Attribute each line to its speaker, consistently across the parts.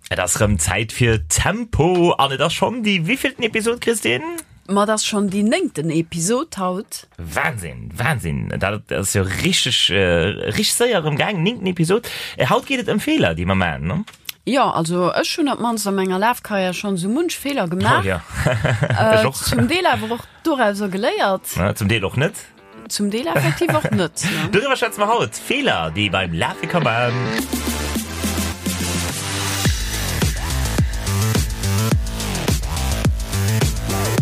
Speaker 1: Et ass rëm Zäit fir Tempo an et ass schonn déi wéivillten Episod, Christine?
Speaker 2: Ma et ass schonn déi néngten Episod haut.
Speaker 1: Wahnsinn, Wahnsinn, dat ass jo richteg, richteg séier erëm gaangen, néngten Episod. Haut geet et ëm Feeler, déi mer maachen, ne?
Speaker 2: Jo, also ech hunn op d'mannst a menger Lafkarriär schonn esou munch Feeler gemaach.
Speaker 1: Oh jo, ech och.
Speaker 2: Zum Deel awer och dorauser geléiert.
Speaker 1: Zum Deel och net.
Speaker 2: Zum Deel effektiv och net.
Speaker 1: Doriwwer schwätze mer haut, Feeler, déi ee beim Lafe ka man.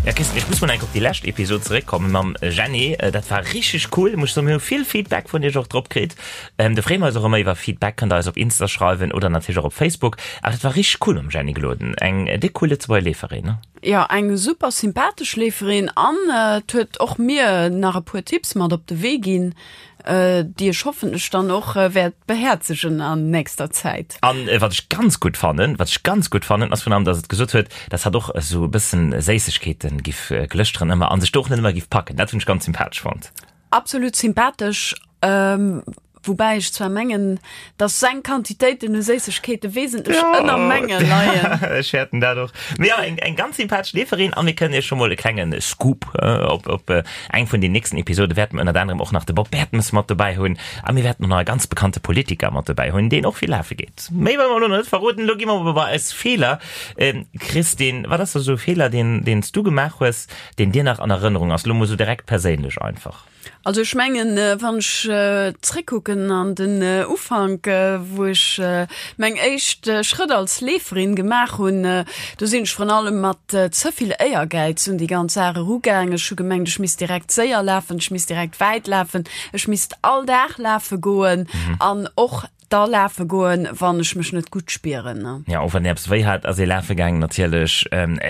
Speaker 1: Ja Christine, ech muss mol enk op déi lescht Episod zeréckkommen mam Jenny. Dat war richteg cool, muss ech soen. Mir hu vill Feedback vun iech och drop kritt. Do freeë mer eis och ëmmer iwwer Feedback, kënnt der eis op Insta schreiwen oder natierlech och op Facebook. Awer dat war richteg cool mam Jenny Gloden, eng déck cool Lëtzebuerger Leeferin, ne?
Speaker 2: Jo, eng super sympathesch Leeferin an et huet och mir nach e puer Tipps mat op de Wee ginn, déi ech hoffentlech dann och wäert behäerzegen an nächster Zäit.
Speaker 1: An wat ech ganz gutt fannen, wat ech ganz gutt fannen, ass virun allem, dass et gesot huet, dass hatt och esou e bëssen Séissegkeeten giff glëschteren ëmmer an sech do och net ëmmer giff packen. Dat hunn ech ganz sympathesch fonnt.
Speaker 2: Absolut sympathesch, woubäi ech zwar mengen, dass seng Quantitéiten u Séissegkeete wesentlech ënner menge leien.
Speaker 1: Ech fäerten dat och. Mee jo, eng ganz sympathesch Leeferin a mir kënnen iech scho mol e klenge Scoop op op eng vun den nächsten Episode wäerte mer ënnert anerem och nach de Bob Bertemes mat dobäi hunn a mir wäerten och nach e ganz bekannte Politiker mat dobäi hunn, deen och vill lafe geet. Méi wëlle mer elo nach net verroden. Elo gi mer awer bei eis Feeler. Christine, wat ass da sou e Feeler, deen deen s du gemaach hues, Deen dir nach an Erënnerung ass, lo mol sou direkt perséinlech einfach.
Speaker 2: Also ech mengen, wann ech zréckkucken an den Ufank, wou ech meng éischt Schrëtt als Leeferin gemaach hunn, do sinn ech vrun allem mat ze vill Éiergäiz un déi ganz Saach erugaang. Ech hu gemengt, ech misst direkt séier lafen, ech misst direkt wäit lafen, ech misst all Dag lafe goen an och Da lafe goen, wann ech mech net gutt spieren.
Speaker 1: Ja, och wann een eppes wéi hat, ass ee lafe gaangen natierlech.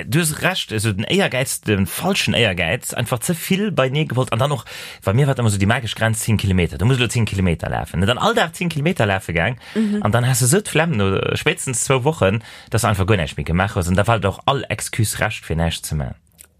Speaker 1: Du hues Recht, esou den Éiergäiz, de falschen Éiergäiz, einfach ze vill beienee gewollt. An dann och, bei mir war et ëmmer esou déi magesch Grenz 10 Kilometer, du muss elo 10 Kilometer lafen. Dann all Dag 10 Kilometer lafe gaang an dann has de esou d'Flemm no spéitstens zwou Wochen, dass de einfach guer näischt méi gemaach hues. An da war et och all Excuse Recht, fir näischt ze man.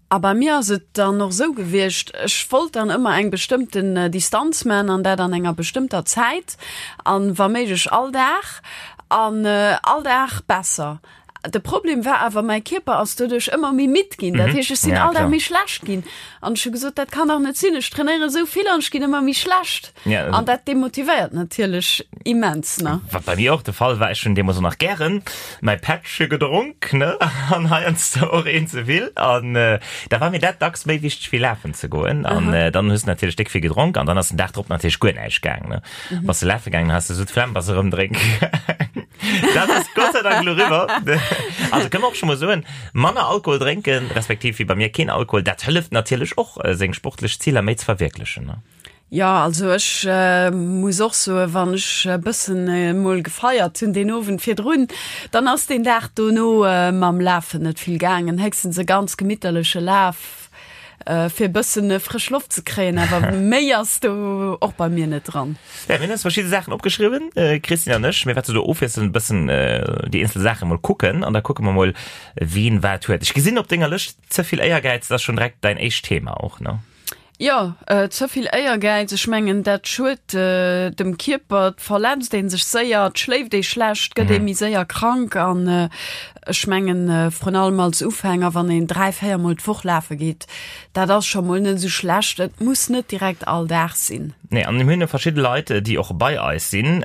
Speaker 2: A bei mir ass et dann och esou gewiescht, ech wollt dann ëmmer eng bestëmmten Distanz man an dat an enger bestëmmter Zäit an wa méiglech all Dag an all Dag besser. De Problem war awer, mäi Kierper ass doduerch ëmmer méi midd ginn, dat heescht ech sinn all Dag méi schlecht ginn an ech hu gesot, dat kann dach net sinn, ech trainéiere esou vill an ech ginn ëmmer méi schlecht. An dat demotivéiert natierlech immens, ne?
Speaker 1: Wat bei mir och de Fall war, ech hunn deemools och nach gären mäi Pättche gedronk, ne, an heiansdo och een ze vill. An da war mir dat dacks méi wichteg wéi lafen ze goen. An dann hues de natierlech déck vill gedronk an dann ass den Dag drop natierlech guer näischt gaang, ne. Bass de lafe gaangen, has de esou d'Flemm, bass erëm drénke gaang. Dat ass Gott sei Dank elo riwwer. Also kënne mer och scho mol soen, manner Alkohol drénken, respektiv wéi bei mir keen Alkohol, dat hëlleft natierlech och, seng sportlech Ziler méi ze verwierklechen, ne.
Speaker 2: Jo, also ech muss och soen, wann ech e bëssen emol gefeiert hunn deen Owend virdrun, dann ass deen Dag dono mam Lafen net vill gaangen. Héchstens e ganz gemitterleche Laf, fir e bëssen frësch Loft ze kréien, awer méi ass do och bei mir net dran.
Speaker 1: Ja, mir hunn eis verschidde Saachen opgeschriwwen, d'Christine an ech. Mir wäerte do ofwiesselnd e bëssen déi eenzel Saache mol kucken an da kucke mer mol, wien wat huet. Ech gesinn op denger Lëscht, ze vill Éiergäiz, dat ass schonn direkt däin éischt Thema och, ne?
Speaker 2: Jo, ze vill Éiergäiz, ech mengen dat schued dem Kierper, et verletzt ee sech séier, et schléift ee schlecht, gëtt ee méi séier krank an ech mengen vrun allem als Ufänger, wann een 3, 4 mol d'Woch lafe geet, dat ass scho mol net esou schlecht, et muss net direkt all Dag sinn.
Speaker 1: Nee, an mir hunn jo verschidde Leit, déi och bei eis sinn,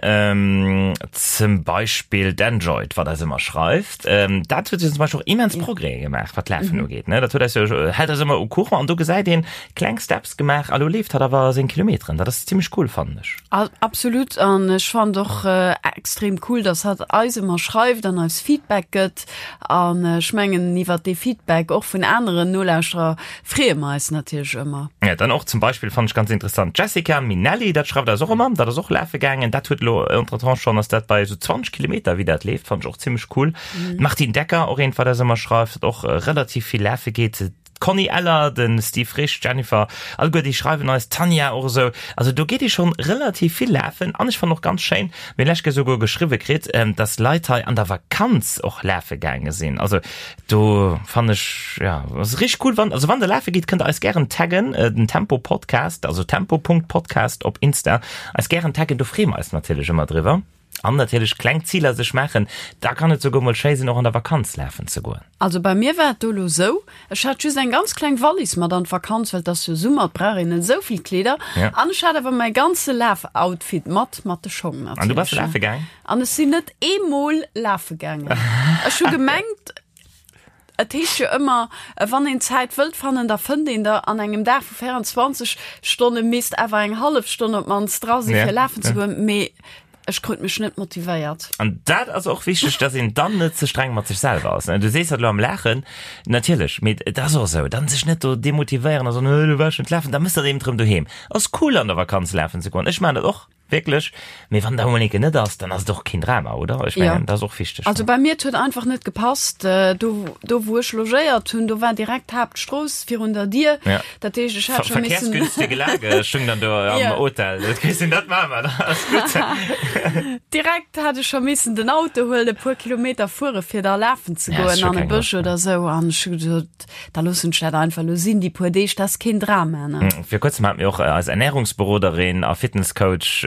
Speaker 1: zum Beispill d'Enjoyd, wat eis ëmmer schreift. Dat huet jo zum Beispill och immens Progrèse gemaach, wat d'Lafen ugeet, ne? Dat huet eis jo, hält eis ëmmer au courant an do gesäit een, kleng Steps gemaach a lo leeft hatt awer seng Kilometeren. Dat ass zimmlech cool, fannen ech.
Speaker 2: Absolut, an ech fannen och extrem cool, dass hatt eis ëmmer schreift an eis Feedback gëtt. An ech mengen, iwwert dee Feedback och vun aneren Nolauschterer freeë mer eis natierlech ëmmer.
Speaker 1: Ja, dann och zum Beispill fannen ech ganz interessant d'Jessica Minelli, dat schreift eis och ëmmer, dat ass och lafe gaangen, dat huet elo entretemps schonn, ass dat bei esou 20 Kilometer wéi dat leeft, fannen ech och zimmlech cool. D'Martine Decker, och eent wat eis ëmmer schreift, dat och relativ vill lafe geet. D'Conny Eller, de Steve Frisch, d'Jennifer, alleguer déi schreiwen eis, d'Tanja och esou. Also do geet ee schonn relativ vill lafen an ech fannen och ganz schéin, mir hunn lech Kéier souguer geschriwwe kritt, dass Leit hei an der Vakanz och lafe gaange sinn. Also do fannen ech, jo, ass richteg cool. Wann, also wann der lafe gitt, kënnt der eis gären taggen, den Tempo Podcast, also tempo Punkt Podcast op Insta, eis gären taggen, do freeë mer eis natierlech ëmmer driwwer. An natierlech kleng Ziler sech maachen, da kann et souguer mol schéi sinn, och an der Vakanz lafen ze goen.
Speaker 2: Also bei mir war et do elo sou, ech hat just eng ganz kleng Wallis mat an d'Vakanz, well et ass jo Summer, et brauch een net esou vill Kleeder.
Speaker 1: Ja.
Speaker 2: An ech hat awer mäi ganze Lafoutfit mat, mat de Schong
Speaker 1: An du bass
Speaker 2: natierlech.
Speaker 1: lafe gaang?
Speaker 2: An ech sinn net eemol lafe gaangen. Ech hu gemengt, Et heescht jo ëmmer, wann een Zäit wëllt fannen, da fënnt een der. An engem Dag vu 24 Stonne misst awer eng hallef Stonn op d'mannst dra sinn, fir lafen ze goen. Mee ech krut mech net motivéiert.
Speaker 1: An dat ass och wichteg, dass een dann net ze streng mat sech selwer ass. Du sees dat elo am Laachen, natierlech, mee et ass och esou, dann sech net do demotivéieren a soen, elo war ech net lafen, da mëss dat eben erëm doheem. Ass cool an der Vakanz lafen ze goen, ech maachen dat och. Wierklech? Mee wann da emol eng Kéier net ass, dann ass et och keen Drama, oder? Ech mengen, dat ass och wichteg.
Speaker 2: Also bei mir, et huet einfach net gepasst. Do, do wou ech logéiert hunn, do war direkt d'Haaptstrooss virun der Dier.
Speaker 1: Ja.
Speaker 2: Dat heescht, ech hat scho missen.
Speaker 1: Verkehrsgünstige Lage stung dann do am
Speaker 2: Ja.
Speaker 1: Hotel. Dat Christine, dat maache mer, dat ass gutt.
Speaker 2: Direkt hat ech scho missen den Auto huelen, e puer Kilometer fuere fir da lafen ze
Speaker 1: Ja, ass
Speaker 2: goen
Speaker 1: scho
Speaker 2: an e
Speaker 1: keng
Speaker 2: Bësch
Speaker 1: Loscht, ne?
Speaker 2: oder esou. An ech hu gesot, Da loossen ech dat einfach elo sinn, déi puer Deeg, dat ass keen Drama, ne?
Speaker 1: Vir kuerzem hat mir och eis Ernährungsberoderin a Fitnesscoach,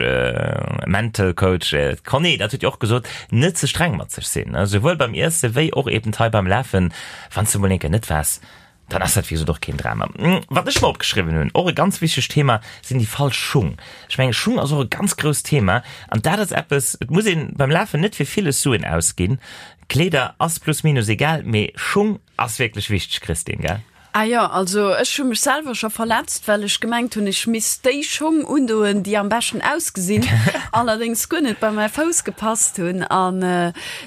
Speaker 1: Mental Coach, d'Conny, dat huet jo och gesot, net ze streng mat sech sinn, souwuel beim Iesse wéi och eben hei beim Lafen. Wann s de mol eng Kéier net waars, dann ass dat wéi gesot och keen Drama. Wat ech mer opgeschriwwen hunn, och e ganz wichtegt Thema, sinn déi falsch Schung. Ech mengen, Schung ass och e ganz grousst Thema an dat ass eppes, et muss een beim Lafen net fir villes Suen ausginn. Kleeder ass plus minus egal, mee Schung Ass wierklech wichteg Christine, gell?
Speaker 2: Ah jo, also ech hu mech selwer scho verletzt, well ech gemengt hunn, ech misst déi Schong undoen, déi am beschten ausgesinn, allerdéngs guer net bei mäi Fouss gepasst hunn. An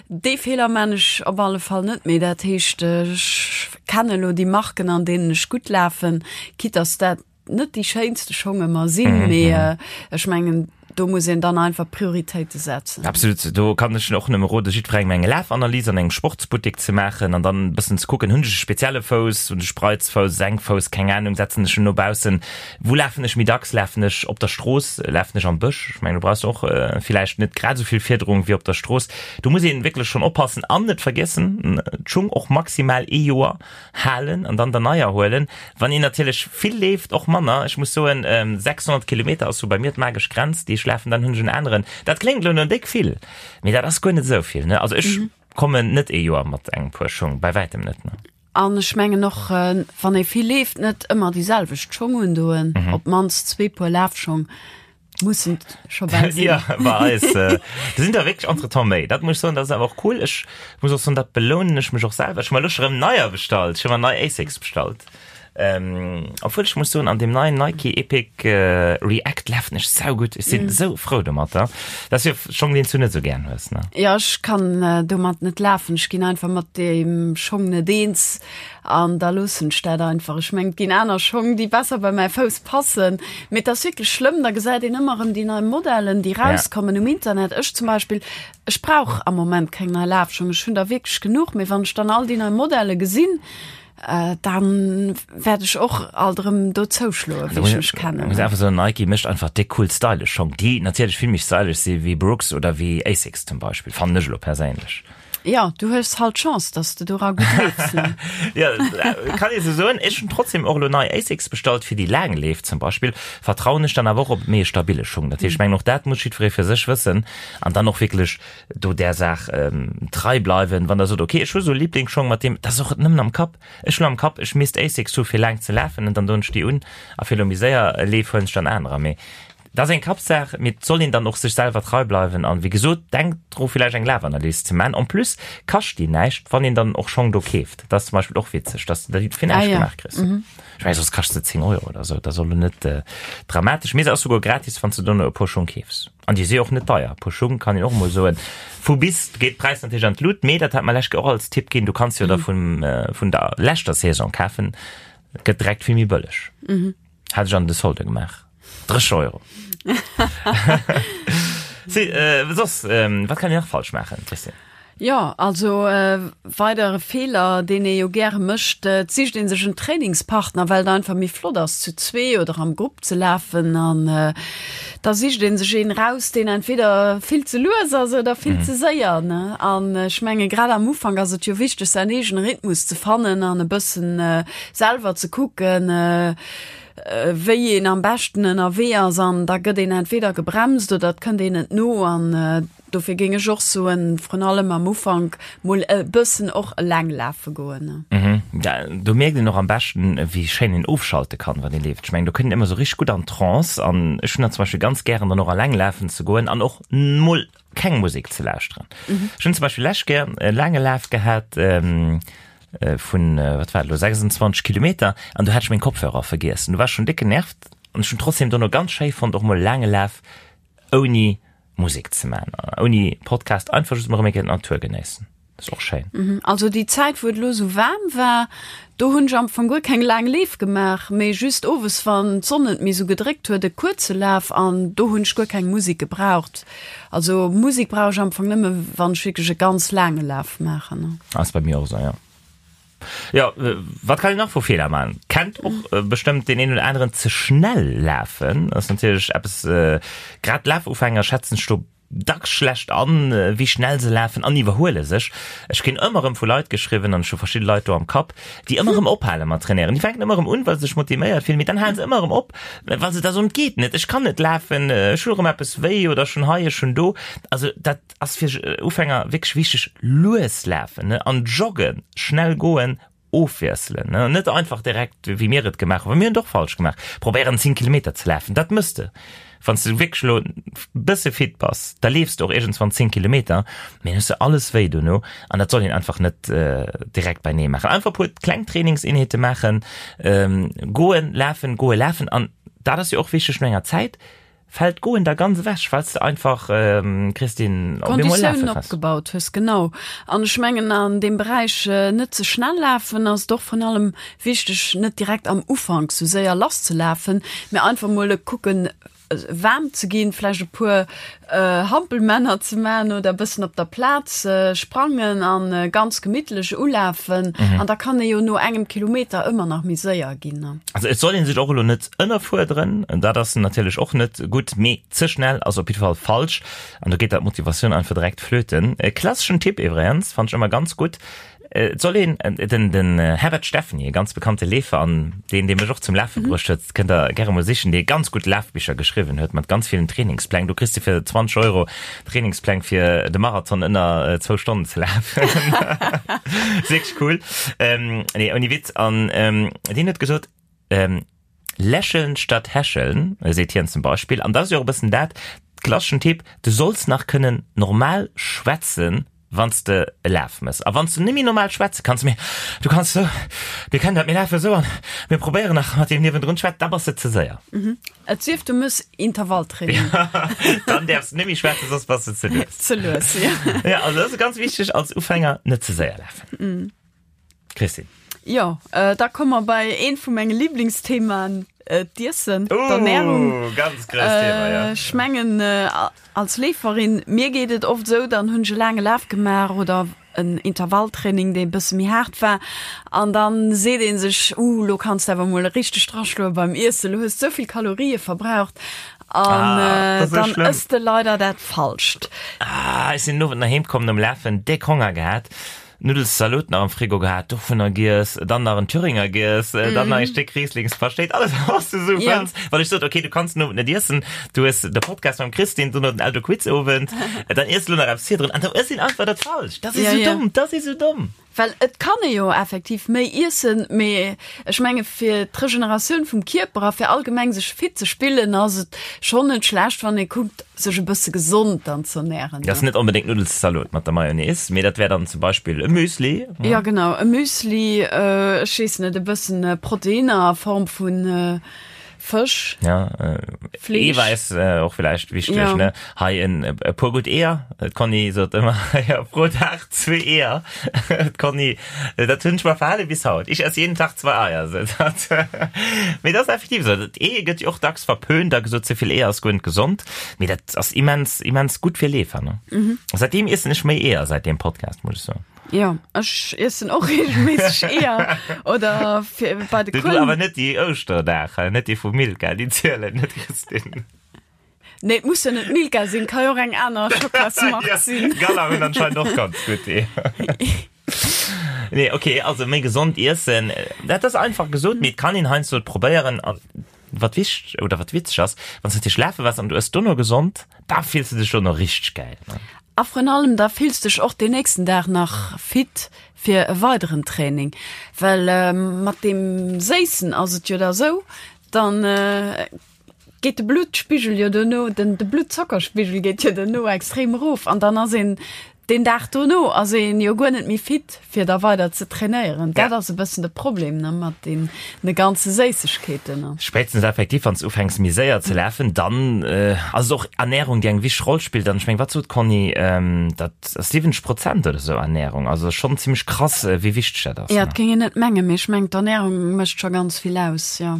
Speaker 2: dee Feeler man ech op alle Fall net méi. Dat heescht, ech kenne elo déi Marken, an deenen ech gutt lafen, quitte dass dat net déi schéinste Schong ëmmer sinn, mee ech mengen, do muss een dann einfach Prioritéite setzen.
Speaker 1: Absolut, do kann ech och nëmme rode jiddwerengem eng Lafanalys an engem Sportsbuttek ze maachen an dann e bëssen ze kucken, hunn ech e spezielle Fouss, hunn ech Spreizfouss, Senkfouss, keng Ahnung, setzen ech en no baussen, wou lafen ech méi dacks, lafen ech op der Strooss, lafen ech am Bësch, ech mengen do brauchs de och villäicht net grad esou vill Fiederung wéi op der Strooss. Do muss een wierklech schonn oppassen an net vergiessen, d'Schung och maximal ee Joer halen an dann der neier huelen. Wann een natierlech vill leeft, och manner. Ech muss soen, 600 Kilometer ass sou bei mir d'magesch Grenz, déi ech lafen, dann hunn ech en aneren. Dat kléngt elo no déck vill, mee dat ass guer net esou vill, ne? Also ech kommen net ee Joer mat engem Puer Schung, bei wäitem net, ne?
Speaker 2: An ech mengen och, wann ee vill leeft, net ëmmer déi selwecht Schong undoen, op d'mannst zwee Puer Lafschong. Mussen scho bal sinn.
Speaker 1: Ja, bei eis äh, do sinn der wierklech entretemps méi. Dat muss ech soen, dat ass awer och cool. Ech muss och soen, dat belounen ech mech och selwer. Ech hu mer elo scho rëm neier bestallt. Ech hu mer nei Asics bestallt. Ähm, obwuel ech muss soen, an deem neien Nike Epic äh, React lafen ech saugutt. Ech sinn esou frou domatter. Dat ass jo Schong, deen s du net esou gären hues, ne?
Speaker 2: Ja, ech kann äh, domat net lafen. Ech ginn einfach mat deem Schong net eens. An da loossen ech dat einfach. Ech mengen, et ginn aner Schong, déi besser bei mäi Fouss passen. Mee et ass wierklech schlëmm, da gesäit een ëmmer erëm déi nei Modellen, déi rauskommen um Internet. Ech zum Beispill, ech brauch am Moment keng nei Lafschong, ech hunn der wierklech genuch. Mee wann ech dann all déi nei Modelle gesinn, da wäert ech och alt erëm do zouschloen, wéi ech mech kennen.
Speaker 1: Muss einfach soen, Nike mécht einfach déck cool stylesch Schong, déi natierlech vill méi stylesch si wéi Brooks oder wéi Asics zum Beispill, fannen ech elo perséinlech.
Speaker 2: Ja, du hues halt Chance, dass de dora gutt leefs, ne?
Speaker 1: Ja, kann ee sou soen. Ech hunn trotzdem och elo nei Asics bestallt fir déi laang Leef zum Beispill. Vertrauen ech dann awer och op méi e stabile Schung. Dat heescht, ech mengen och dat muss jiddweree fir sech wëssen an dann och wierklech do där Saach trei bleiwen. Wann der sot, okay, ech hu sou e Liblingsschong, mat deem, dat ass och nëmmen am Kapp. Ech hunn am Kapp, ech misst Asics hu fir laang ze lafen an dann doen ech déi un a fir elo méi séier Leef huelen ech dann anerer. Mee Dat ass eng Kappsaach, mee et soll een dann och sech selwer trei bleiwen an wéi gesot, denkt dru villäicht eng Lafanalys ze man. En plus kascht déi näischt, wann een dann och Schong do keeft. Dat ass zum Beispill och witzeg, dass de déi fir näischt gemaach kriss. Ech mengen soss kascht se 10 Euro oder sou, dat ass och elo net dramatesch, mee se ass souguer gratis wann s de dono e puer Schong keefs. An déi si och net deier, e puer Schung kann een och emol soen. Vu bis geet d'Präis natierlech an d'Lut, mee dat hat mer lech och als Tipp ginn, du kanns jo der vun vun der leschter Saison kafen, gëtt direkt vill méi bëlleg. Hat ech an de Solde gemaach. 30 Euro. Si, äh, soss, ähm, wat kann een nach falsch maachen, Christine?
Speaker 2: Jo, also e weidere Feeler, deen ee jo gäre mécht, et sicht ee sech en Trainingspartner, well et einfach méi flott ass, zu zwee oder am Grupp ze lafen. An da sicht ee sech een eraus, deen entweder vill ze lues ass oder vill ze séier, ne? An ech menge grad am Ufank ass et jo wichteg, säin eegene Rhythmus ze fannen an e bëssen selwer ze kucken, wéi een am beschten ënnerwee ass an da gëtt een entweder gebremst oder et kënnt een net no an. Dofir géing ech och soen, vrun allem am Ufank mol e bëssen och eleng lafe goen.
Speaker 1: Mhm, do mierkt een och am beschten, wéi schéin een ofschalte kann, wann ee leeft. Ech mengen, do kënnt een ëmmer sou richteg gutt an d'Trance an ech hunn dat zum Beispill ganz gären, dann och eleng lafen ze goen an och mol keng Musek ze lauschteren. Ech hunn zum Beispill lescht Kéier e laange Laf gehat vun, wat war et elo, 26 Kilometer an do hat ech meng Kopfhörer vergiess an du war ech schonn déck genervt an ech hunn trotzdem dono ganz schéi fonnt, och mol e laange Laf ouni Musek ze man, ouni Podcast, einfach just mol erëm eng Kéier d'Natur genéissen. Dat ass och schéin.
Speaker 2: Mhm. Also déi Zäit wou et elo sou waarm war, do hunn ech am Fong guer keng laang Leef gemaach, mee just owes wann d'Sonn net méi sou gedréckt huet e kuerze Laf an do hunn ech guer keng Musek gebraucht. Also Musek brauch ech am Fong nëmme wann ech wierklech e ganz laange Laf maachen.
Speaker 1: Ass bei mir och esou, jo. Jo, wat kann een nach vu Feeler maachen? Kennt och bestëmmt deen een oder aneren, ze schnell lafen ass natierlech eppes, grad Lafufänger schätzen sech do dacks schlecht an, wéi schnell se lafen an iwwerhuele sech. Ech kréien ëmmer erëm vu Leit geschriwwen, an ech hu verschidde Leit do am Kapp, déi ëmmer erëm ophale mat trainéieren. Déi fänken ëmmer erëm un, well se sech motivéiert fillen, mee dann hale se ëmmer erëm op, well se da soen, et geet net, ech kann net lafen, ech hu erëm eppes wéi oder ech hunn hei, ech hunn do. Also dat ass fir Ufänger wierklech wichteg, lues lafen, ne, an joggen, schnell goen, ofwiesselen, ne, net einfach direkt, wéi mir et gemaach hunn, well mir hunn et och falsch gemaach, probéieren 10 Kilometer ze lafen, dat mëss de, wann s de wierklech elo bësse fit bass, da leefs de och iergendswann 10 Kilometer, mee dann hues de alles wéi dono an dat soll een einfach net direkt beinee maachen. Einfach e puer kleng Trainingseenheete maachen, goen, lafen, goen, lafen an dat ass jo och wichteg no enger Zäit, Fällt d'Goen da ganz ewech, well s de einfach, Christine,
Speaker 2: op eemol lafe Konditiounen opgebaut hues, genau. An ech mengen, an deem Beräich net ze schnell lafen ass et och vrun allem wichteg, net direkt am Ufank sou séier lasszelafen, mä einfach mol kucken, waarm ze ginn, vläicht e puer Hampelmänner ze man oder e bëssen op der Plaz sprangen a ganz gemittlech ulafen. An da kann ee jo no engem Kilometer ëmmer nach méi séier ginn.
Speaker 1: Also et soll ee sech och elo net ënnerfuerderen, dat ass natierlech och net gutt, mee ze schnell ass op jidde Fall falsch an do geet der d'Motivatioun einfach direkt flöten. E klasseschen Tipp iwwregens, fannt ech ëmmer ganz gutt, et soll een, den den Herbert Steffen, e ganz bekannte Leefer an deen dee mech och zum Lafe bruecht huet, kënnt der gäre mol sichen, dee ganz gutt Lafbicher geschriwwen huet mat ganz villen Trainingspläng, do kriss de fir 20 Euro Trainingspläng fir de Marathon ënner zwou Stonnen ze lafen. Ass wierklech cool. Nee, ouni Witz, an deen huet gesot, Lächeln statt hecheln, seet hien zum Beispill. An dat ass jo och e bëssen dat, klasseschen Tipp, du solls nach kënnen normal schwätzen, wann s de e Laf mëss. A wann s du net méi normal schwätze kanns, mee du kanns esou, mir kennen dat, mir lafen esou an mir probéieren nach mat deem niewendrun schwätzen, da bass de ze séier.
Speaker 2: Et sief du mëss Intervalltraining.
Speaker 1: Dann däerfs de net méi schwätzen, soss bass de ze lues.
Speaker 2: Ze lues,
Speaker 1: jo. Ja, also dat ass ganz wichteg als Ufänger, net ze séier lafen. Christine.
Speaker 2: Jo, da komme mer bei eent vu menge Liblingsthemaen, d'Iessen, d'Ernärung.
Speaker 1: Oh, ganz grousst Thema, ja.
Speaker 2: Ech mengen, als Leeferin, mir geet et oft esou, dann hunn ech e laange Laf gemaach oder en Intervalltraining, dee e bësse méi haart war, an dann seet ee sech, Uh, lo kanns de awer mol richteg draschloe beim Iessen, lo hues de esou vill Kalorië verbraucht. An
Speaker 1: ah,
Speaker 2: dann ëss de leider dat Falscht.
Speaker 1: Ah, ech sinn den Owend nach heem komm nom Lafen, déck Honger gehat. Nuddelszalot nach am Frigo gehat, dovunner giess, dann nach en Thüringer giess, dann nach ee Stéck Rieslingspaschtéit, alles was du sou
Speaker 2: Ja.
Speaker 1: fënns. Well ech sot, okay, du kanns den Owend net iessen, du hues de Podcast mam Christine, dono den Eldo Quiz Owend, dann iess lo nach eppes virdrun an da ëss een einfach dat Falscht. Dat ass
Speaker 2: Ja,
Speaker 1: sou
Speaker 2: ja.
Speaker 1: domm, dat ass sou domm.
Speaker 2: Well et kann ee jo effektiv méi iessen, mee ech menge fir d'Regeneratioun vum Kierper a fir allgemeng sech fit ze spillen, ass et schonn net schlecht, wann ee kuckt, sech e bësse gesond dann z'ernären.
Speaker 1: Dat ass net onbedéngt Nuddelszalot mat der Mayonnaise, mee dat wär dann zum Beispill e Müsli.
Speaker 2: Ja genau, e Müsli, ech weess net, e bëssen Proteinner a Form vu Fësch,
Speaker 1: Ja,
Speaker 2: Fleesch.
Speaker 1: Eewäiss och villäicht wichteg,
Speaker 2: Ja.
Speaker 1: ne? Hei en e puer gutt Eeër. D'Conny sot ëmmer, ja, pro Dag zwee Eeër. D'Conny, dat hunn ech mer verhale bis haut. Ich esse jeden Tag zwei Eier, sot hatt. Mee dat ass effektiv esou. D'Ee gëtt jo och dacks verpönt a gesot, ze vill Eeër ass guer net gesond. Mee dat ass immens, immens gutt fir Leefer, ne? Säitdeem iessen ech méi Eeër, säit deem Podcast, muss ech soen.
Speaker 2: Jo, ech iessen och regelméisseg Eeër oder fir bei de
Speaker 1: Du, du
Speaker 2: Kuelen.
Speaker 1: awer net déi Ouschterdag, net déi vu Milka, déi zielen net, Christine.
Speaker 2: Nee, et muss jo net Milka sinn, ka jo och eng aner Schockelasmark
Speaker 1: Ja,
Speaker 2: sinn.
Speaker 1: Gala hunn anscheinend och ganz gutt Eeër. Nee, okay, also méi gesond iessen, dat ass einfach gesot, mee et kann een heiansdo et probéieren. An wat wichteg oder wat witzeg ass, wann s du natierlech lafe waars an du ëss dono gesond, da fills du dech dono richteg gäil, ne?
Speaker 2: A vrun allem da fills dech och deen nächsten Dag nach fit fir e weideren Training, well mat deem Séissen ass et jo da sou, dann geet de Bluttspigel jo dono, den de Bluttzockerspigel geet jo dono extrem erof an dann ass een deen Dag dono ass een jo guer net méi fit fir da weider ze trainéieren. Dat ass e bëssen de Problem ne mat deene ganze Séissegkeeten.
Speaker 1: Spéitstens effektiv wann s de ufänks méi séier ze lafen, dann ass et och Ernärung déi eng wichteg Roll spillt an ech meng wat sot d'Conny, dat ass 70 Prozent oder sou Ernärung, also schonn zimmlech krass wéi wichteg dat ass.
Speaker 2: Jo, et géing een net mengen, mee ech mengen d'Ernärung mécht scho ganz vill aus, jo.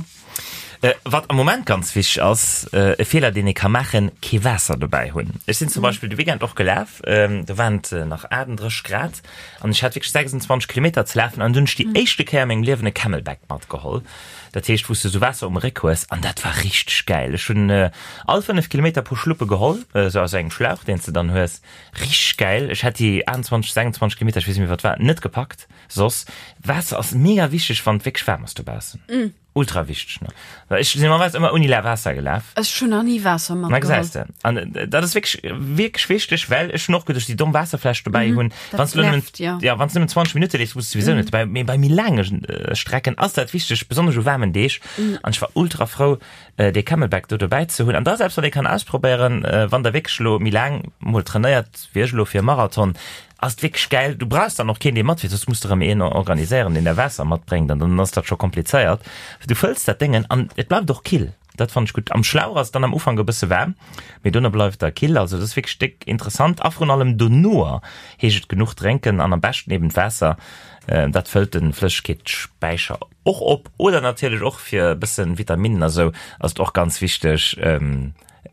Speaker 1: Wat am Moment ganz wichteg ass, e Feeler deen ee ka maachen, kee Waasser dobäi hunn. Ech sinn zum Beispill de Weekend och gelaf, do waren et nach 38 Grad an ech hat wierklech 26 Kilometer ze lafen an dunn hunn ech déi éischte Kéier a mengem Liewen e Camelback matgeholl, dat heescht wou s de esou Waasser um Réck hues an dat war richteg gäil. Ech hunn all 5 Kilometer e puer Schluppe geholl, esou aus engem Schlauch deen s de dann hues, richteg gäil. Ech hätt déi 28, 26 Kilometer, ech weess net méi wat war, net gepackt soss. Waasser ass mega wichteg wann et wierklech waarm ass dobaussen. Ultra wichteg ne. Well ech sinn normalerweis ëmmer ouni la Waasser gelaf.
Speaker 2: Ech hunn nach ni Waasser
Speaker 1: Na matgeholl. gesäis de. An äh, dat ass wierklech wierklech wichteg, well ech hunn och geduecht, déi domm Waasserfläsch dobäi hunn.
Speaker 2: Dat
Speaker 1: Wann s du nëmmen
Speaker 2: nervt, ja.
Speaker 1: ja, wann s du nëmmen 20 Minutte leefs, muss du souwisou net dobäi. Mee bei méi laange äh, Strecken ass dat wichteg, besonnesch u waarmen Deeg. An ech war ultra frou, äh, dee Camelback do dobäi ze hunn. An da selbst wann ee kann ausprobéieren, äh, wann der wierklech elo méi laang mol trainéiert, wéi ech elo fir e Marathon, Ass et wierklech gäil. Du brauchs dann och keen dee matfiert, soss muss de rëm een organiséieren deen der Waasser matbréngt an dann ass dat scho komplizéiert. Du fëlls dat Déngen an et bleift och kill, dat fannen ech gutt. Am Schlauch ass et dann am Ufank e bësse waarm, mee dono bleift der kill. Also dat ass wierklech déck interessant a vrun allem donoer heescht et genuch drénken an am beschten eben d'Waasser, dat fëllt de Flëssegkeetsspäicher och op. Oder natierlech och fir e bëssen Vitaminnen a sou ass et och ganz wichteg.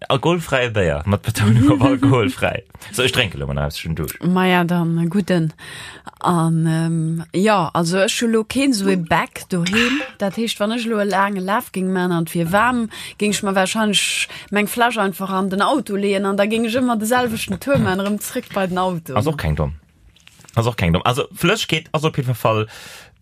Speaker 1: Alkoholfräie Béier, mat Betounung op alkoholfräi. So, ech drénke lo mol nach eppes, ech hunn Duuscht.
Speaker 2: Maja, dann e gudden. An jo, also ech hu lo keen esou e Bag doheem. Dat heescht, wann ech elo e laange Laf géing man an et wier waarm, géing ech mer warscheinlech meng Fläsch einfach an den Auto leeën an da géing ech ëmmer de selwechten Tour man, erëm zréck bei den Auto.
Speaker 1: Ass och keng domm. Ass och keng domm. Also Flëssegkeet ass op jidfer Fall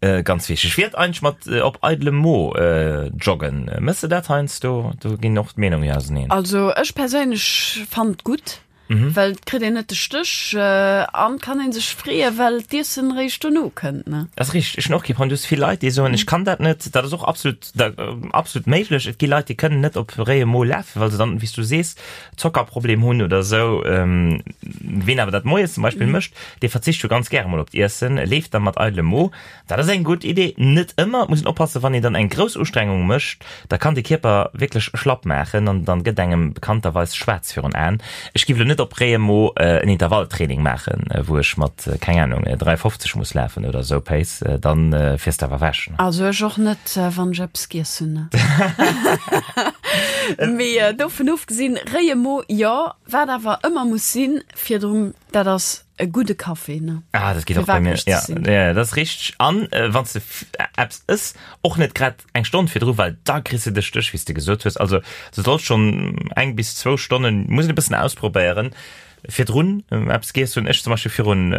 Speaker 1: äh, ganz wichteg. Wéi et eigentlech mat äh, op eidelem Mo äh, joggen? Mëss de dat heiansdo? Do ginn och d'Meenungen jo auseneen.
Speaker 2: Also ech perséinlech fannen et gutt, mhm. well et kritt een net de Stéch äh, an kann een sech freeë well d'Iessen réischt dono kënnt. Ne?
Speaker 1: Das richteg. Ech hunn och kee Problem. Du hues vill Leit, déi soen, ech kann dat net. Dat ass och absolut, da, äh, absolut méiglech. Et gi Leit, déi kënnen net op réiem Mo lafen, well se dann, wéi s du sees, Zockerproblem hunn oder esou. Ween awer dat moies zum Beispill mécht, dee verzicht jo ganz gäre mol op d'Iessen, leeft da mat eidelem Mo. Dat ass eng gutt Idee, net ëmmer. Et muss een oppassen, wann een dann eng grouss Ustrengung mécht, da kann de Kierper wierklech schlapp maachen an dann gëtt engem bekannterweis schwaarz virun Aen. Ech giff elo net op réiem Mo en Intervalltraining maachen, wou ech mat, keng Ahnung, 3,50 muss lafen oder esou, Pace, dann fiers de awer ewech.
Speaker 2: Also ech och net, wann ech eppes giess hunn. Mee dovun ofgesinn, réie Mo, jo. Wat awer ëmmer muss sinn virdrun, dat ass e gudde Café, ne?
Speaker 1: Ah, dat geet och bei mir. Ja, ja, dat ass richteg. An wann s de eppes ëss, och net grad eng Stonn virdru, well da kriss de de Stéch, wéi s de gesot hues. Also du solls schonn eng bis zwou Stonnen, muss een e bëssen ausprobéieren, Virdrun eppes giess hunn. Ech zum Beispill virun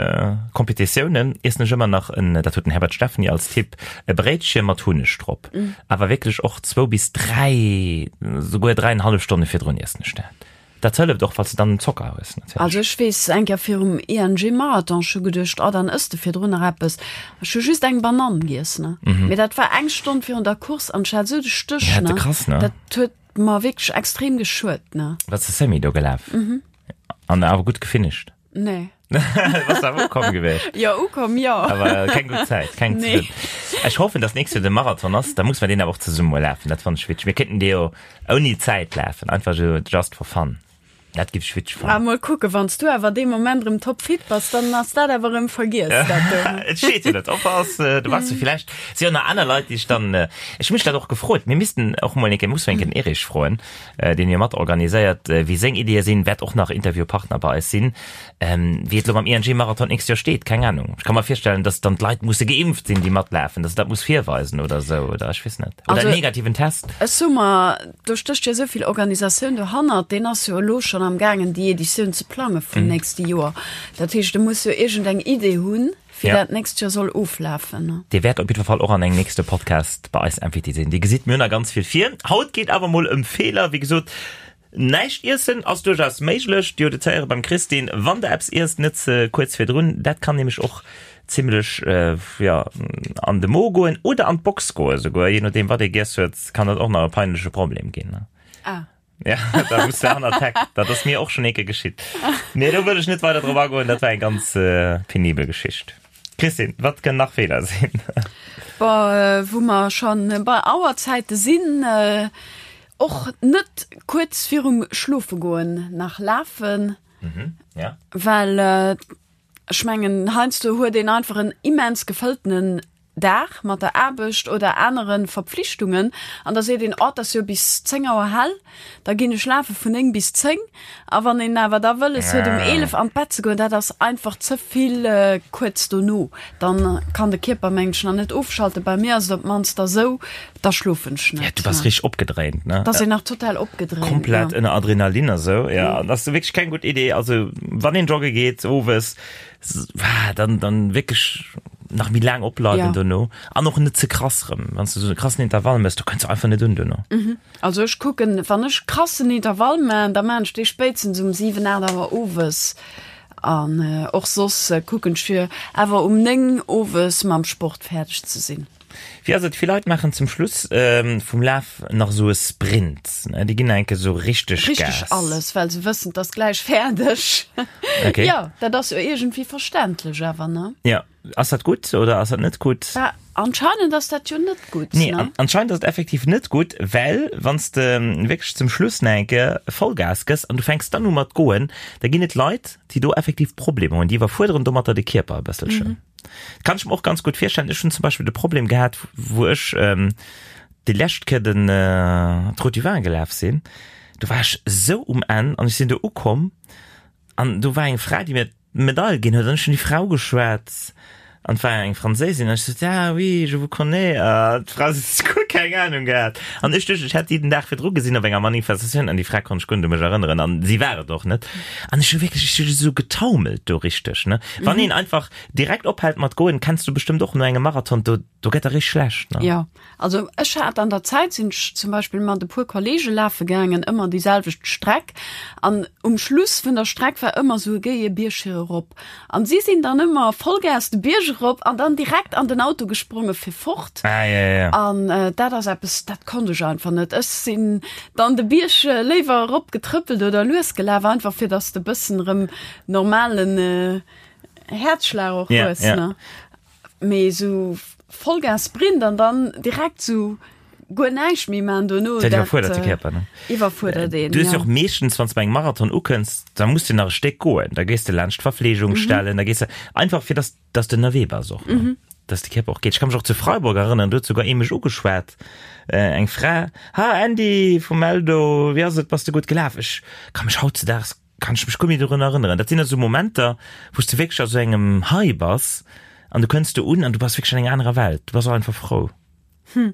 Speaker 1: Competitiounen iessen ech ëmmer nach en, dat huet den Herbert Stephany als Tipp, e Bréitche mat Hunneg drop. Awer wierklech och zwou bis dräi, souguer dräienhallef Stonne virdrun iessen ech dat. Dat hëlleft och, falls de dann Zocker hues
Speaker 2: natierlech. Also ech weess, eng Kéier virum ING Marathon, ech hu geduecht, oh dann ëss de virdrun nach eppes. Ech hu just eng Banann giess, ne. Mee dat war eng Stonn virun der Course an ech hat esou de Stéch,
Speaker 1: ne. Krass, ne?
Speaker 2: Dat huet mer wierklech extrem geschuet, ne.
Speaker 1: Waars de Semi do gelaf? An awer gutt gefinisht?
Speaker 2: Nee.
Speaker 1: Bass awer ukomm gewiescht?
Speaker 2: Jo, ukomm, jo.
Speaker 1: Awer keng gutt Zäit, keng ze
Speaker 2: Nee.
Speaker 1: gutt. Ech hoffen, dass nächst Joer de Marathon ass, da muss mer deen awer och zesumme mol lafen. Dat fannen ech witzeg. Mir kéinten dee jo ouni Zäit lafen, einfach esou just for fun. Dat giff ech witzeg
Speaker 2: Ah,
Speaker 1: fannen.
Speaker 2: mol kucken, wann s du awer dee Moment erëm topfit bass, dann ass dat awer erëm vergiess, dat do.
Speaker 1: Et steet jo net op, ass, du waars jo villäicht, si jo nach aner Leit, déi ech dann, ech hu mech dat och gefrot, mir missten och mol eng Kéier, muss mol eng Kéier den Erich froen, deen jo mat organiséiert, wéi seng Ideeë sinn, wäert och nach Interviewpartner bei eis sinn. Wéi et elo mam ING-Marathon d'nächst Joer steet, keng Ahnung. Ech ka mer virstellen, datt dann d'Leit musse geimpft sinn, déi matlafen, datt se dat muss virweisen oder esou, oder ech weess net. Oder en negativen Test.
Speaker 2: Ech soe mer, do stécht jo esou vill Organisatioun dohannert, deen ass jo elo schonn am gaangen, déi Editioun ze plange vum nächste Joer. Dat heescht, e muss jo iergendeng Idee hunn. Wéi dat nächst Joer soll oflafen.
Speaker 1: Dir wäert op jiddwer Fall och an engem nächste Podcast bei eis Invité sinn. Dir gesitt, mir hunn nach ganz vill vir. Haut geet awer mol ëm Feeler. Wéi gesot, Näischt iessen ass duerchaus méiglech. Dir hutt et héiere beim Christine, wann der eppes iesst, net ze kuerz virdrun. Dat kann nämlech och zimmlech, jo, an de Mo goen oder an d'Box goen esouguer. Je nodeem wat ee giess huet, kann dat och nach e peinleche Problem ginn.
Speaker 2: Ah.
Speaker 1: Ja, da muss de hanner d'Heck. Dat ass mir och schonn eeke geschitt. Mee do wëll ech net weider drop agoen, dat war eng ganz penibel Geschicht. Christine, wat kënnen nach Feeler sinn?
Speaker 2: Bon, wou mer schonn bei Auerzäite sinn, och net kuerz virum Schlofegoen nach lafen.
Speaker 1: Mhm, ja.
Speaker 2: Well ech mengen, heiansdo huet een einfach en immens gefëlltenen Dag mat der Aarbecht oder anere Verpflichtungen an da seet een, oh, et ass jo bis 10 Auer hell, da ginn ech lafe vun 9 bis 10. A wann een awer da wëlles huet um 11 an d'Bett ze goen, dat ass einfach ze vill kuerz dono. Dann kann de Kierper mengen ech nach net ofschalten. Bei mir ass et op d'mannst da sou, da schlofen ech net.
Speaker 1: Ja, du bass richteg opgedréint, ne?
Speaker 2: Da ass een nach total opgedréint.
Speaker 1: Komplett ënner Adrenalin a sou. Ja, dat ass wierklech keng gutt Idee. Also wann een jogge geet owes, dann, dann wierklech nach méi laang opbleiwen
Speaker 2: Ja.
Speaker 1: dono an och net ze krass rëm. Wann s du sou e krassen Intervall mëss, do kënns du einfach net un dono.
Speaker 2: Also ech kucken, wann ech krassen Intervall man, da man ech dee spéitstens um 7, 8 Auer owes. An och soss kucken ech fir awer um 9 owes mam Sport fäerdeg ze sinn.
Speaker 1: Wéi ass et, vill Leit maachen zum Schluss vum Laf nach esou e Sprint, ne? Déi ginn nach eng Kéier esou richteg Gas.
Speaker 2: Richteg alles, well se wëssen, 't ass gläich fäerdeg.
Speaker 1: Okay.
Speaker 2: Jo, dat ass jo iergendwéi verständlech awer, ne?
Speaker 1: Jo. Ass dat gutt oder ass dat net gutt?
Speaker 2: Bah, anscheinend ass dat jo net gutt,
Speaker 1: Nee,
Speaker 2: ne?
Speaker 1: an, anscheinend ass et effektiv net gutt, well wann s de wierklech zum Schluss nach eng Kéier Vollgas gëss an du fänks dann u mat goen, da ginn et Leit, déi do effektiv Problemer hunn, déi iwwerfuerderen domatter de Kierper e bësselchen. Kann ech mer och ganz gutt virstellen. Ech hunn zum Beispill de Problem gehat, wou ech déi lescht Kéier den d'Route du Vin gelaf sinn, do war ech esou um Enn an ech sinn do ukomm an do war eng Fra, déi mir d'Medail ginn huet an ech hunn déi Frau geschwat an et war eng Franséisin an ech sot, ah oui, je vous connais a d'Fra sot, guer keng Ahnung gehat an ech duecht, ech hätt déi den Dag virdru gesinn op enger Manifestatioun an déi Fra konnt ech guer net u mech erënneren an si war et och net an ech hu wierklech, ech hu esou getaumelt do richteg, ne. Wann een einfach direkt ophält mat goen, kenns du bestëmmt och no engem Marathon, do, do gëtt der richteg schlecht, ne?
Speaker 2: Jo, also ech hat an der Zäit, sinn ech zum Beispill mat e puer Kollege lafe gaangen, ëmmer déi selwecht Streck an um Schluss vun der Streck war ëmmer esou e géie Bierg fir erop an si sinn dann ëmmer Vollgas de Bierg erop an dann direkt an den Auto gespronge fir fort.
Speaker 1: Ah, ja, ja, ja.
Speaker 2: An dat ass eppes, dat konnt ech einfach net. Ech sinn dann de Bierg léiwer erop getrëppelt oder lues gelaf, einfach fir dass de bëssen erëm normalen Häerzschlag och
Speaker 1: Ja,
Speaker 2: hues,
Speaker 1: ja.
Speaker 2: ne? Mee sou Vollgas Sprint an dann direkt sou guer näischt méi man dono,
Speaker 1: Dat iwwerfuerdert de Kierper, ne?
Speaker 2: Iwwerfuerdert een,
Speaker 1: Du hues jo
Speaker 2: ja.
Speaker 1: och meeschtens, wann s de bei engem Marathon ukënns, da muss de nach e Stéck goen. Da gees de laanscht d'Verfleegungsstellen, da gees de einfach fir dass dass de ënnerwee bass och, ne? Dass de Kierper och geet. Ech ka mech och zu Freiburg erënneren, do huet souguer ee mech ugeschwat, eng Fra, Ha Andy vum Eldo, wéi ass et, bass de gutt gelaf? Ech ka mech hautzedaags Kann ech mech guer méi dorun erënneren. Dat sinn also Momenter, wou s de wierklech a sou engem High bass an du kënns do un an du bass wierklech an enger anerer Welt. Du bass och einfach frou.
Speaker 2: Hm.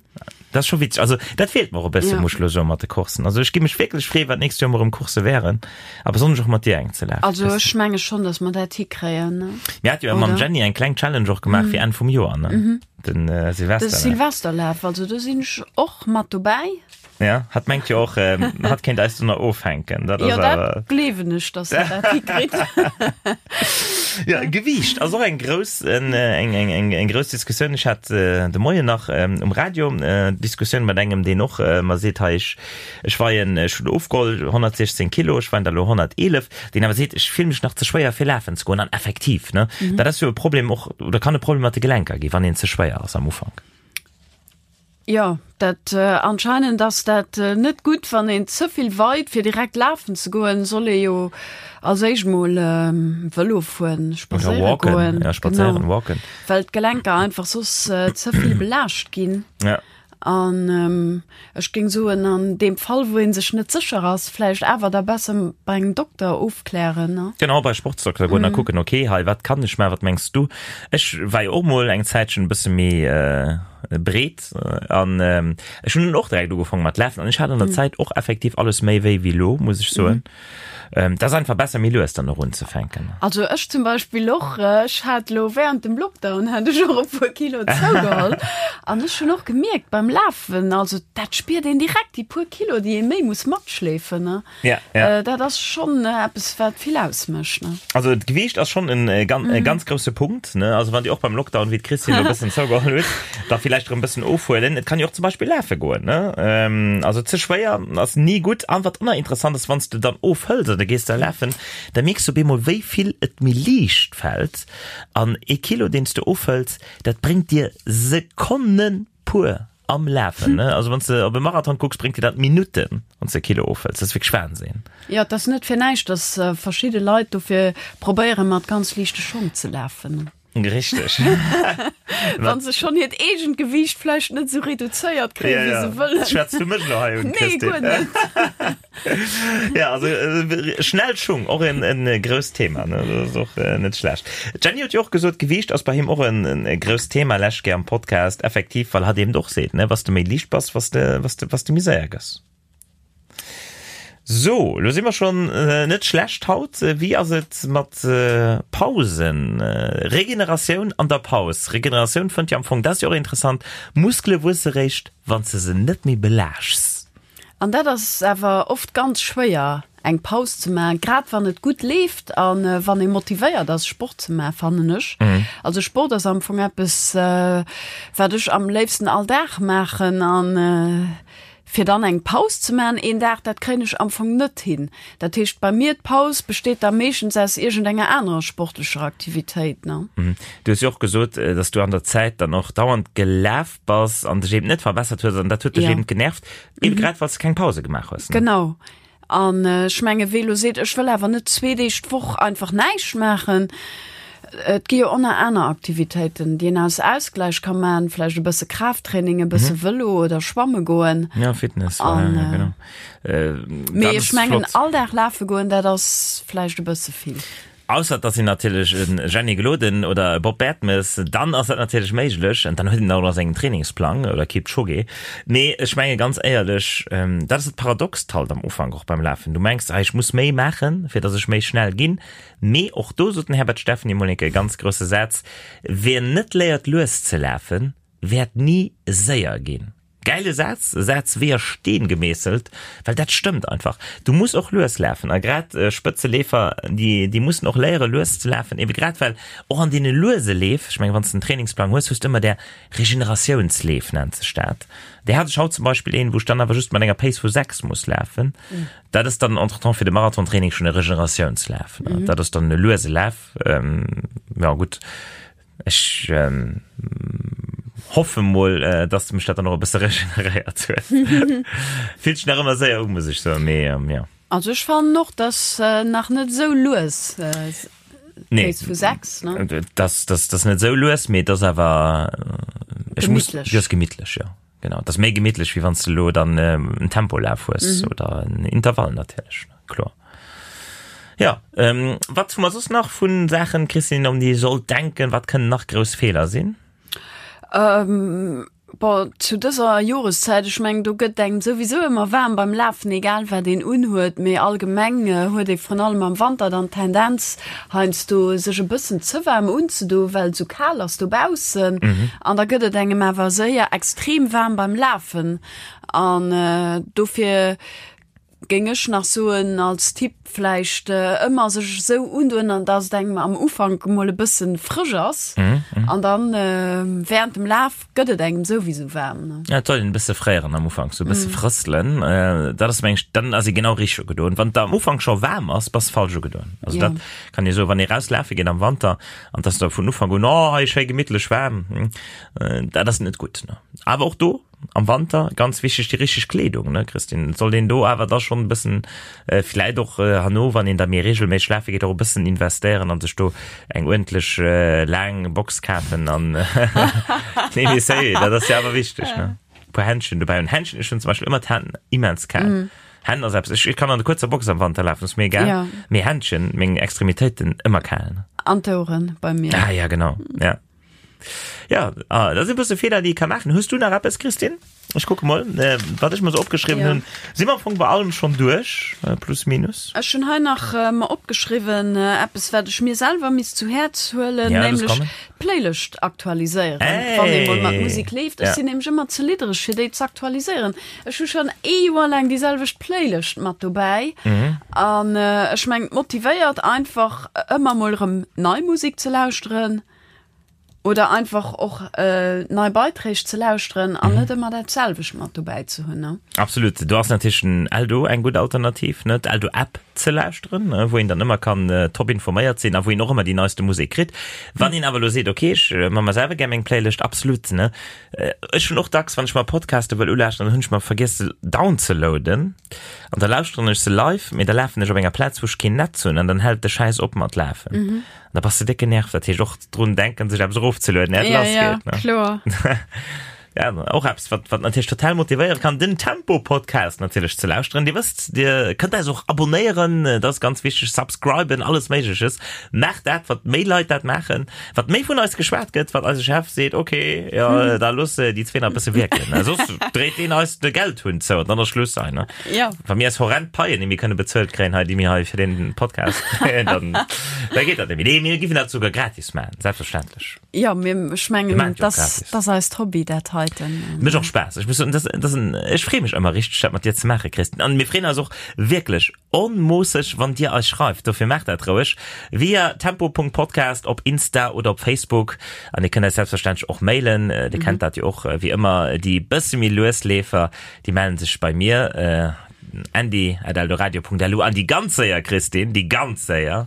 Speaker 1: Dat ass scho witzeg. Also dat feelt mer och e bësse,
Speaker 2: Ja.
Speaker 1: muss ech elo soen, mat de Courssen. Also ech gi mech wierklech freeën, wat d'nächst Joer mol erëm Coursse wären a besonnesch och mat dir eng ze lafen.
Speaker 2: Also ech menge schonn, datt mer dat hikréien, ne?
Speaker 1: Mir hate jo mam
Speaker 2: Oder?
Speaker 1: Jenny eng kleng Challenge och gemaach fir Enn vum Joer, ne? Den äh,
Speaker 2: De
Speaker 1: Silvesterlaf.
Speaker 2: Silvesterlaf, also do sinn ech och mat dobäi.
Speaker 1: Ja, hat mengt jo och, ähm, hat kéint eis dunner ofhänken. Dat
Speaker 2: Jo,
Speaker 1: ass awer.
Speaker 2: dat gleewen ech, dass der dat hikritt.
Speaker 1: Ja, Gewiicht ass och eng grouss, en, eng, eng, eng, eng grouss Diskussioun. Ech hat äh, de Moien nach ähm, um Radio äh, Diskussioun mat engem, deen och äh, mer seet, hei, ech, ech weien, ech hunn ofgeholl 116 Kilo, ech weien der elo 111, deen awer seet, ech fill mech nach ze schwéier fir lafen ze goen. An effektiv, ne, dat ass jo e Problem och, oder kann e Problem mat de Gelenker gi, wann een ze schwéier ass am Ufank.
Speaker 2: Jo, dat anscheinend ass dat net gutt, wann een ze vill weit. Fir direkt lafen ze goen, soll ee jo als éischt mol Vëlo fueren,
Speaker 1: Oder
Speaker 2: spadséiere
Speaker 1: walken,
Speaker 2: goen.
Speaker 1: ja, spadséieren,
Speaker 2: Genau,
Speaker 1: walken.
Speaker 2: well d'Gelenker einfach soss ze vill belaascht ginn.
Speaker 1: Ja.
Speaker 2: An ech géing soen, an deem Fall, wou ee sech net sécher ass, vläicht awer da besser bei engem Dokter ofklären, ne?
Speaker 1: Genau, bei Sportsdokter goen a kucken, okay, hei, wat kann ech maachen, wat mengs du? Ech war jo och mol eng Zäitchen e bësse méi breet an ech hunn och direkt ugefaangen mat lafen an ech hat an der Zäit och effektiv alles méi wéi wéi lo, muss ech soen. Et ass einfach besser méi lues dann och unzefänken.
Speaker 2: Also ech zum Beispill och, ech hat lo während dem Lockdown hat ech och e puer Kilo zougeholl an ech hunn och gemierkt beim. beim Lafen, also dat spiert een direkt, déi puer Kilo, déi ee méi muss matschleefen, ne?
Speaker 1: Ja, ja.
Speaker 2: Äh, dat ass schonn eppes, wat vill ausmécht, ne?
Speaker 1: Also d'Gewiicht ass schonn en äh, gan, mm. ganz grousse Punkt, ne? Also wann Dir och beim Lockdown, wéi d'Christine elo bëssen zougeholl huet, da villäicht erëm bëssen ofhuelen. Et kann jo och zum Beispill lafe goen, ne? Ähm, also ze schwéier ass ni gutt. An wat och nach interessant ass, wann s de dann ofhëls an du gees da lafen, da mierks du op eemol, wéi vill et méi liicht fält. An ee Kilo, deen s de ofhëls, dat bréngt dir Sekonnen pur am Lafen. Ne? Also wann s de op e Marathon kucks, bréngt dir dat Minutten, wann s de e Kilo ofhëls. Dat ass wierklech Wahnsinn.
Speaker 2: Jo, et ass net fir näischt, dass verschidde Leit dofir probéieren, mat ganz liichte Schong ze lafen.
Speaker 1: Richteg.
Speaker 2: Wann se schonn hiert eegent Gewiicht vläicht net esou reduzéiert kréien, wéi se wëllen.
Speaker 1: Schwätz du mech elo hei un,
Speaker 2: Nee,
Speaker 1: Christine?
Speaker 2: guer net.
Speaker 1: Ja, also äh, schnell Schung, och en, en äh, grousst Thema, ne? Dat ass och äh, net schlecht. D'Jenny huet jo och gesot, Gewiicht ass bei him och en, en, e grousst Thema lescht Kéier am Podcast, effektiv, well hatt eben och seet, ne, was du méi liicht bass, was de, was de, was de méi séier gëss. So, lo si mer schon äh, net schlecht haut. Äh, Wéi ass et mat äh, Pausen? Äh, Regeneratioun an der Paus. Regeneratioun fënnt jo am Fong, dat ass jo och interessant, Muskele wuesse réischt, wann s de se net méi belaaschts.
Speaker 2: An dat ass awer oft ganz schwéier, eng Paus ze maachen, grad wann et gutt leeft a wann ee motivéiert ass, Sport ze maachen, fannen ech. Also Sport ass am Fong eppes, wat ech am léifsten all Dag maachen. An fir dann eng Paus ze maachen een Dag, dat kréien ech am Fong net hin. Dat heescht bei mir, d'Paus besteet da meeschtens aus iergendenger anerer sportlecher Aktivitéit, ne.
Speaker 1: Du hues jo och gesot, dass du an der Zäit dann och dauernd gelaf bass an dech eben net verbessert hues an dat huet dech ja. eben genervt, eben mhm. grad well s de keng Pause gemaach hues.
Speaker 2: Ne? Genau. An äh, ech menge wéi lo seet, ech wëll awer net zwee Deeg d'Woch einfach näischt maachen. Et gi jo ënner aner Aktivitéiten, déi een aus Ausgleich ka man, vläicht e bësse Kraafttraining, e bësse mhm. Vëlo oder schwamme goen.
Speaker 1: Ja, Fitness. An, ja, genau.
Speaker 2: Äh, Mee ech mengen all Dag lafe goen, dat ass vläicht e bësse vill.
Speaker 1: Ausser et ass een natierlech e Jenny Gloden oder e Bob Bertemes, dann ass dat natierlech méiglech an dann huet een och nach sengen Trainingsplang oder Kipchoge. Mee ech menge ganz éierlech, dat ass dat Paradoxt halt am Ufank och beim Lafen. Du mengs, ah ech muss méi maachen, fir datt ech méi schnell ginn. Mee och do sot den Herbert Steffen emol enke e ganz grousse Saz, Wien net léiert lues ze lafen, wäert ni séier ginn. Gäile Saz, e Saz wéi a Steen gemeesselt, well dat stëmmt einfach. Du muss och lues lafen a grad Spëtzeleefer, déi, déi mussen och léiere lues ze lafen, ebe grad well och an deene luese Leef, ech mengen, wann s de en Trainingsplang hues, hues de ëmmer där Regeneratiounsleef nennt sech dat. Där hat ech haut zum Beispill een, wou ech dann awer just mat enger Pace vu 6 muss lafen. Dat ass dann entretemps fir de Marathontraining schonn e Regeneratiounslaf, ne? Dat ass dann e luese Laf, jo gutt. Ech hoffe mol, dass mech dat dann och e bësse regeneréiert huet. Fillt sech nach ëmmer séier u, muss ech soen, mee jo.
Speaker 2: Also ech fannen och, dass nach net esou lues,
Speaker 1: Nee.
Speaker 2: Pace vu 6, ne?
Speaker 1: Das, das, das net esou lues, mee et ass awer, ech muss,
Speaker 2: Gemittlech.
Speaker 1: jo, ass gemittlech, jo. Genau, et ass méi gemittlech, wéi wann s de elo dann en Tempolaf hues oder en Intervall natierlech, kloer. Ja, ähm, wat hu mer soss nach vun Saachen, Christine, um déi ee sollt denken? Wat kënnen nach grouss Feeler sinn?
Speaker 2: Ähm, bon, zu dëser Joreszäit, ech mengen, do gëtt engem souwisou ëmmer waarm beim Lafen, egal wat een unhuet, mee allgemeng huet ee vrun allem am Wanter dann d'Tendenz, heiansdo sech e bëssen ze waarm unzedoen, well et esou kal ass dobaussen. An da gëtt et engem awer séier extrem waarm beim Lafen. An dofir Géing ech nach soen als Tipp, vläicht ëmmer sech esou undoen, an dass et engem am Ufank emol e bëssen frësch ass an dann während dem Laf gëtt et engem souwisou waarm. Ne?
Speaker 1: Ja, et soll een e bësse fréieren am Ufank, sou e bësse frësselen. Dat ass meng ech, dann ass ee genau richteg ugedoen. Wann et der am Ufank scho waarm ass, bass de falsch ugedoen. Also dat kann ee soen, wann ee raus lafe geet am Wanter an et ass der vun Ufank un, oh hei schéi gemittlech waarm, dat ass net gutt. Ne? Awer och do, Am Wanter ganz wichteg déi richteg Kleedung, ne Christine? Et sollt een do awer da schonn e bëssen, vläit och herno, wann een da méi reegelméisseg lafe geet, och e bëssen investéieren an sech do eng uerdentlech laang Box kafen an nee mee sérieux, dat ass jo awer wichteg, ne? E puer Händschen dobäi hunn. Händschen, ech hunn zum Beispill ëmmer d'Hänn immens kal. Hänn ass eppes, ech kann an der kuerzer Box am Wanter lafen, ass mir egal, mee Händschen, meng Extremitéiten, ëmmer kal.
Speaker 2: An d'Oueren bei mir.
Speaker 1: Ah ja, genau, ja. Ja, ah, dat si bësse Feeler, déi ee ka maachen. Hues du nach eppes, Christine? Ech kucke mol, wat ech mer sou opgeschriwwen hunn. Si mer am Fong bei allem schonn duerch, plus minus?
Speaker 2: Ech hunn hei nach mer opgeschriwwen, eppes wat ech mir selwer misst zu Häerz huelen, nämlech d'Playlëscht aktualiséieren, wann ee mol mat Musek leeft. Ech sinn nämlech ëmmer ze liddereg fir déi ze aktualiséieren. Ech hu schonn ee Joer laang déi selwecht Playlëscht mat dobäi an ech mengen, et motivéiert einfach ëmmer mol erëm nei Musek ze lauschteren. Oder einfach och nei Beiträg ze lauschteren an net ëmmer dat selwecht mat dobäi ze hunn, ne?
Speaker 1: Absolut. Do ass natierlech den Eldo eng gutt Alternativ, ne? D'Eldo App ze lauschteren, wou een dann ëmmer kann top informéiert sinn a wou een och ëmmer déi neiste Musek kritt. Wann een awer elo seet, ok, ech man mer selwer gär meng Playlëscht, absolut, ne? Ech hunn och dacks, wann ech mer Podcaste wëll ulauschteren, dann hunn ech mer vergiess se downzeloaden an da lauschteren ech se live, mee da lafen ech op enger Plaz, wou ech keen Netz hunn an dann hält de Schäiss op mat lafen. Da bass de déck genervt, dat heescht och drun denken, sech eppes erofzelueden, iert et
Speaker 2: Ja,
Speaker 1: lass
Speaker 2: ja,
Speaker 1: geet, ne?
Speaker 2: kloer.
Speaker 1: Ja, och eppes, wat, wat natierlech total motivéiere kann, den Tempo-Podcast natierlech ze lauschteren. Dir wësst, Dir kënnt eis och abonnéieren, dat ass ganz wichteg, subscriben, alles Méigleches. Maacht dat, wat méi Leit dat maachen, wat méi vun eis geschwat gëtt, wat eise Chef seet, okay, jo, da looss déi zwee nach e bësse wierken, ne? Soss dréit deen eis de Geldhunn zou an dann ass Schluss hei, ne?
Speaker 2: Ja.
Speaker 1: Wa mir eis horrend Paien nemmi kënne bezuelt kréien hei, déi mir hei fir den Podcast kréien, dann, da geet dat nemmi. Nee, mir giffen dat souguer gratis maachen, selbstverständlech.
Speaker 2: Ja, mir, ech
Speaker 1: Mir
Speaker 2: mengen,
Speaker 1: maachen et jo och
Speaker 2: das,
Speaker 1: gratis.
Speaker 2: das eist Hobby, dat heiten.
Speaker 1: Mécht och Spaass. Ech muss soen, das, das en, ech freeë mech ëmmer richteg, dat mat dir ze maachen, Christine. An mir freeën eis och wierklech onmoosseg, wann dir eis schreift. Dofir maacht dat roueg via tempo.podcast op Insta oder op Facebook. An dir kënnt eis selbstverständlech och mailen. Dir kennt dat jo och, wéi ëmmer, déi bësse méi lues Leefer, Déi mellen sech bei mir, andy@eldoradio.lu, an déi ganz séier, Christine, déi ganz séier,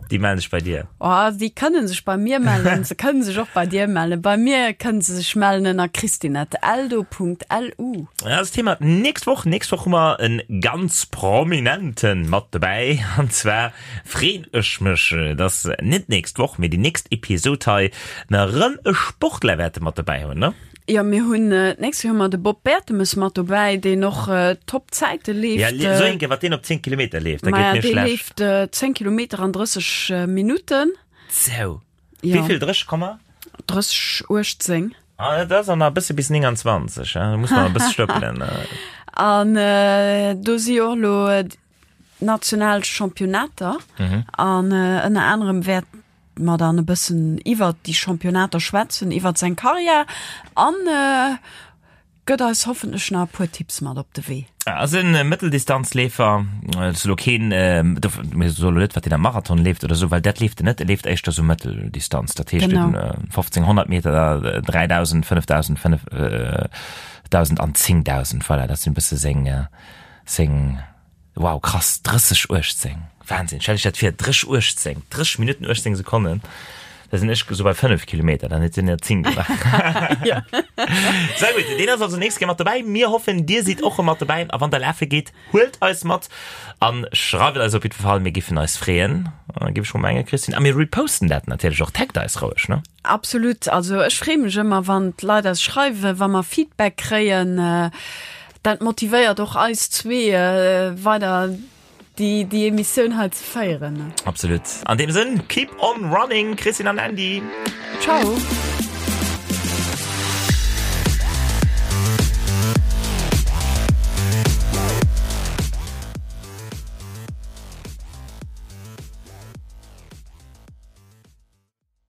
Speaker 1: déi mellen sech bei dir.
Speaker 2: Oh, déi kënnen sech bei mir mellen, se kënnen sech och bei dir mellen. Bei mir kënnen se sech mellen ënner christine@eldo.lu.
Speaker 1: Dat ass d'Thema d'nächst Woch. Nächst Woch hu mer e ganz Prominenten mat dobäi. An zwar freen ech mech, dass net d'nächst Woch, mee déi nächst Episod hei mer erëm e Sportler wäerte mat dobäi hunn, ne?
Speaker 2: Jo, mir hunn d'nächst Joer hu mer de Bob Bertemes mat dobäi, deen och top Zäite leeft.
Speaker 1: Ja, sou eng Kéier, wat deen op 10 Kilometer leeft, da geet
Speaker 2: Maja,
Speaker 1: mir
Speaker 2: dee
Speaker 1: schlecht.
Speaker 2: leeft 10 Kilometer an 30 Minutten.
Speaker 1: Sou.
Speaker 2: Jo.
Speaker 1: Wéi vill? 30 Komma?
Speaker 2: 30, 18.
Speaker 1: Ah, dat ass an nach e bësse bis 29, hein, da muss mer e bësse stëppelen.
Speaker 2: An do si jo och elo national Championnater an ënner anerem wäert mer dann e bëssen iwwert déi Championnater schwätzen, iwwert seng Karriär an gëtt eis hoffentlech nach e puer Tipps mat op de Wee.
Speaker 1: Ass e Mëtteldistanzleefer, ass elo keen, mir soe lo net, wat deen am Marathon leeft oder esou, well dat leeft en net, e leeft éischter sou Mëtteldistanz, dat heescht
Speaker 2: Genau.
Speaker 1: 1500 Meter, 3000, 5000, 5000 an 10.000, voilà, dat sinn e bësse seng, seng. Wow krass, 30 18, Wahnsinn, stell dech dat vir, 30 18, 30 Minutten 18 Sekonnen, da sinn ech esou bei 5 Kilometer, dann huet hien der 10 gemaach. Sehr gutt, deen ass also nächst Kéier mat dobäi. Mir hoffen dir sidd och mat dobäi a wann der lafe geet, huelt eis mat an schreift eis op jiddwer Fall, mir giffen eis freeën, giff ech mol mengen Christine, a mir reposten dat natierlech och, taggt eis roueg, ne?
Speaker 2: Absolut, also ech freeë mech ëmmer wann d'Leit eis schreiwen, wa mer Feedback kréien. Dat motivéiert och eis zwee weider déi déi Emissioun hei ze féieren.
Speaker 1: Absolut. An deem Sënn, keep on running, Christine an Andy.
Speaker 2: Ciao.